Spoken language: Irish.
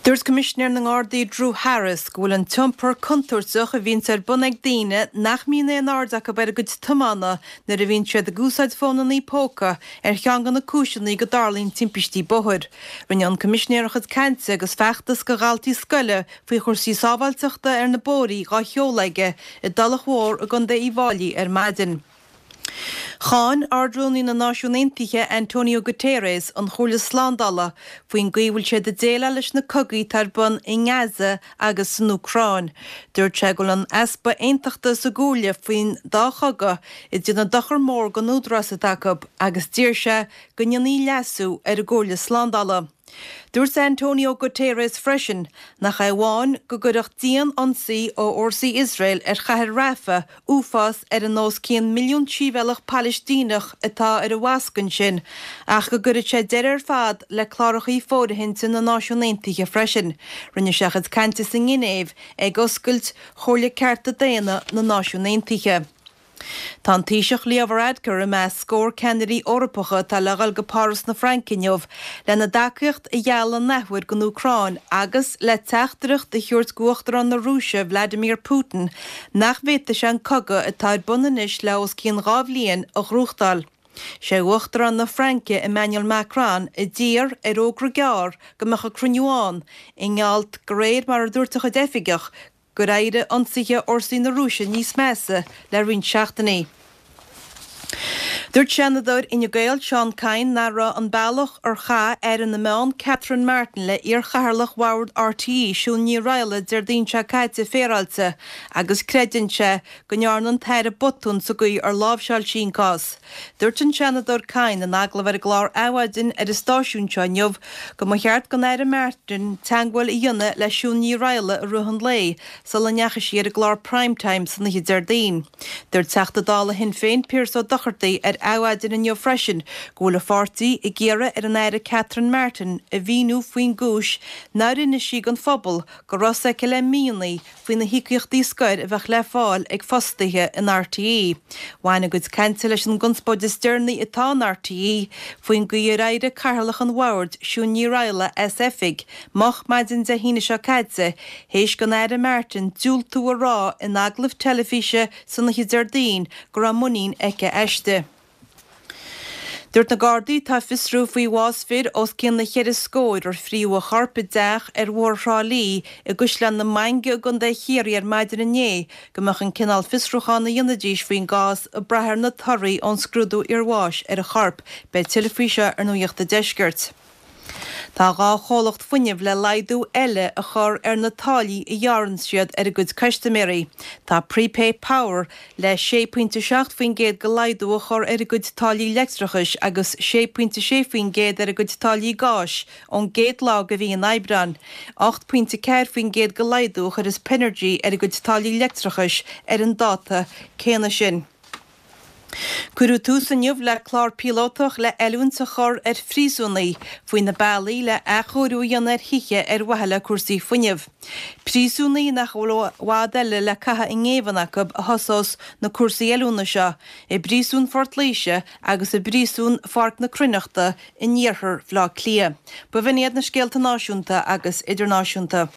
Dúirt Coimisinéir na nGardaí Drew Harris go bhfuil an t-iompar contúirteach a bhíonns ar bun ag daoine nach mbíonn aon aird acu ar a gcuid tiomána nuair a bhíonn siad ag úsáid fónannaí póca ar cheann de na cúiseanna go dtarlaíonn timpistí bóthair. Rinne an Coimisinéir a chuid cainte agus feachtas go dhaltaí scoile faoi chúrsaí sábháilteachta ar na bóithrí dhá sheoladh aige i dTulach Mhór i gContae Uíbh Fháilí ar maidin. Cháin Ard-Rúnaí na Náisiún Aontaithe Antonio Guterres an Chomhairle Slándála faoin gcaoi a bhfuil siad ag déileáil leis na cogaí atá ar bun i nGaza agus san Úcráin. Dúirt sé go bhfuil an easpa aontachta sa gComhairle faoin dá chogadh ag déanamh dochar mór don údarás atá acu agus d'iarr sé go ndéanfaí leasú ar an gComhairle Slándála. Dúirt Antonio Guterres freisin nach é amháin go gcuirfeadh dian-ionsaí ó fhórsaí Iosrael ar chathair Rafah uafás ar an os cionn milliún sibhialtach Palaistíneach atá ar an bhfoscadh ansin ach go gcuirfeadh sé deireadh ar fad le clárachaí fóirithinte na Náisiún Aontaithe freisin. Rinne sé a chuid cainte sa nGinéiv ag oscailt Chomhairle Cearta Daonna na Náisiún Aontaithe. Tá an Taoiseach Leo Varadkar i measc scór ceannairí Eorpacha atá le dhul go Páras na Fraince inniu lena dtacaíocht a ghealladh an athuair don Úcráin agus le teachtaireacht a thabhairt d'Uachtarán na Rúise Vladimir Putin nach bhféadfaidh sé an cogadh atá ar bun anois le os cionn 2 bhliain a ghnóthachtáil. Sé Uachtarán na Fraince Emmanuel Macron a d'iarr ar fhógra gearr go mbeadh an cruinniú ann i ngeall de réir mar a dúirt a chuid oifigeach gur éirigh ionsaithe fhórsaí na Rúise níos measa le roinnt seachtainí. Dúirt Seanadóir Fhine Gael Seán Kyne nach raibh an bealach ar chaith Aire na Meán Catherine Martin le iarchathaoirleach Bhord RTÉ Siún Ní Raghallaigh Déardaoin seo caite féaráilte agus creideann sé go ndearna an tAire botún sa gcaoi ar láimhseáil sí an cás. Dúirt an Seanadóir Kyne in agallamh ar an gclár Adhmhaidin ar an stáisiún seo inniu go mba cheart don Aire Martin teagmháil a dhéanamh le Siún Ní Raghallaigh i rith an lae sula ndeachaigh sí ar an gclár Prime Time san oíche Déardaoin. Dúirt Teachta Dála Shinn Féin Pearse Ó Dochartaigh ar Adhmhaidin inniu freisin go bhfuil a pháirtí ag iarraidh ar an Aire Catherine Martin a mhíniú faoin gcúis nár inis sí don phobal go raibh a fhios aici le míonna faoi na híocaíochtaí scoir a bheadh le fáil ag fostaithe in RTÉ. Bhain a gcuid cainte leis an gconspóid is deireanaí atá in RTÉ faoin gcaoi ar éirigh Cathaoirleach an Bhoird, Siún Ní Raghallaigh, as oifig moch maidin Dé hAoine seo caite théis don Aire Martin diúltú a rá in agallamh teilifíse san oíche Déardaoin go raibh muinín aici aisti. Dúirt na Gardaí atá ag fiosrú faoi bhás fir os cionn na cheithre scóir ar fríodh a chorp i dteach ar Bhóthar Thrá Lí i gCaisleán na Mainge i gContae Chiarraí ar maidin inné go mbeadh an cineál fiosrúcháin a dhéanfaidís faoin gcás ag brath ar na torthaí ón scrúdú iarbháis ar an chorp. Beidh tuilleadh faoi seo ar Nuacht an Deiscirt. Tá 2 chomhlacht fuinnimh le laghdú eile a chur ar na táillí a ghearrann siad ar a gcuid custaiméirí. Tá Prepay Power le 6.7% de laghdú a chur ar a gcuid táillí leictreachais agus 6.6% ar a gcuid táillí gáis ón gcéad lá de mhí an Aibreáin. 8.4% de laghdú a chuirfeas Penergy ar a gcuid táillí leictreachais ar an dáta céanna sin. Cuireadh tús inniu le clár píolótach le oiliúint a chur ar phríosúnaigh faoi na bealaí le athchóiriú a dhéanamh ar thithe ar mhaithe le cúrsaí fuinnimh. Príosúnaigh nach bhfuil i bhfad eile le caitheamh i ngéibheann acu a thosós na cúrsaí oiliúna seo i bPríosún Phort Laoise agus i bPríosún Pháirc na Cruithneachta in iarthar Bhaile Átha Cliath. B'in iad na scéalta náisiúnta agus idirnáisiúnta.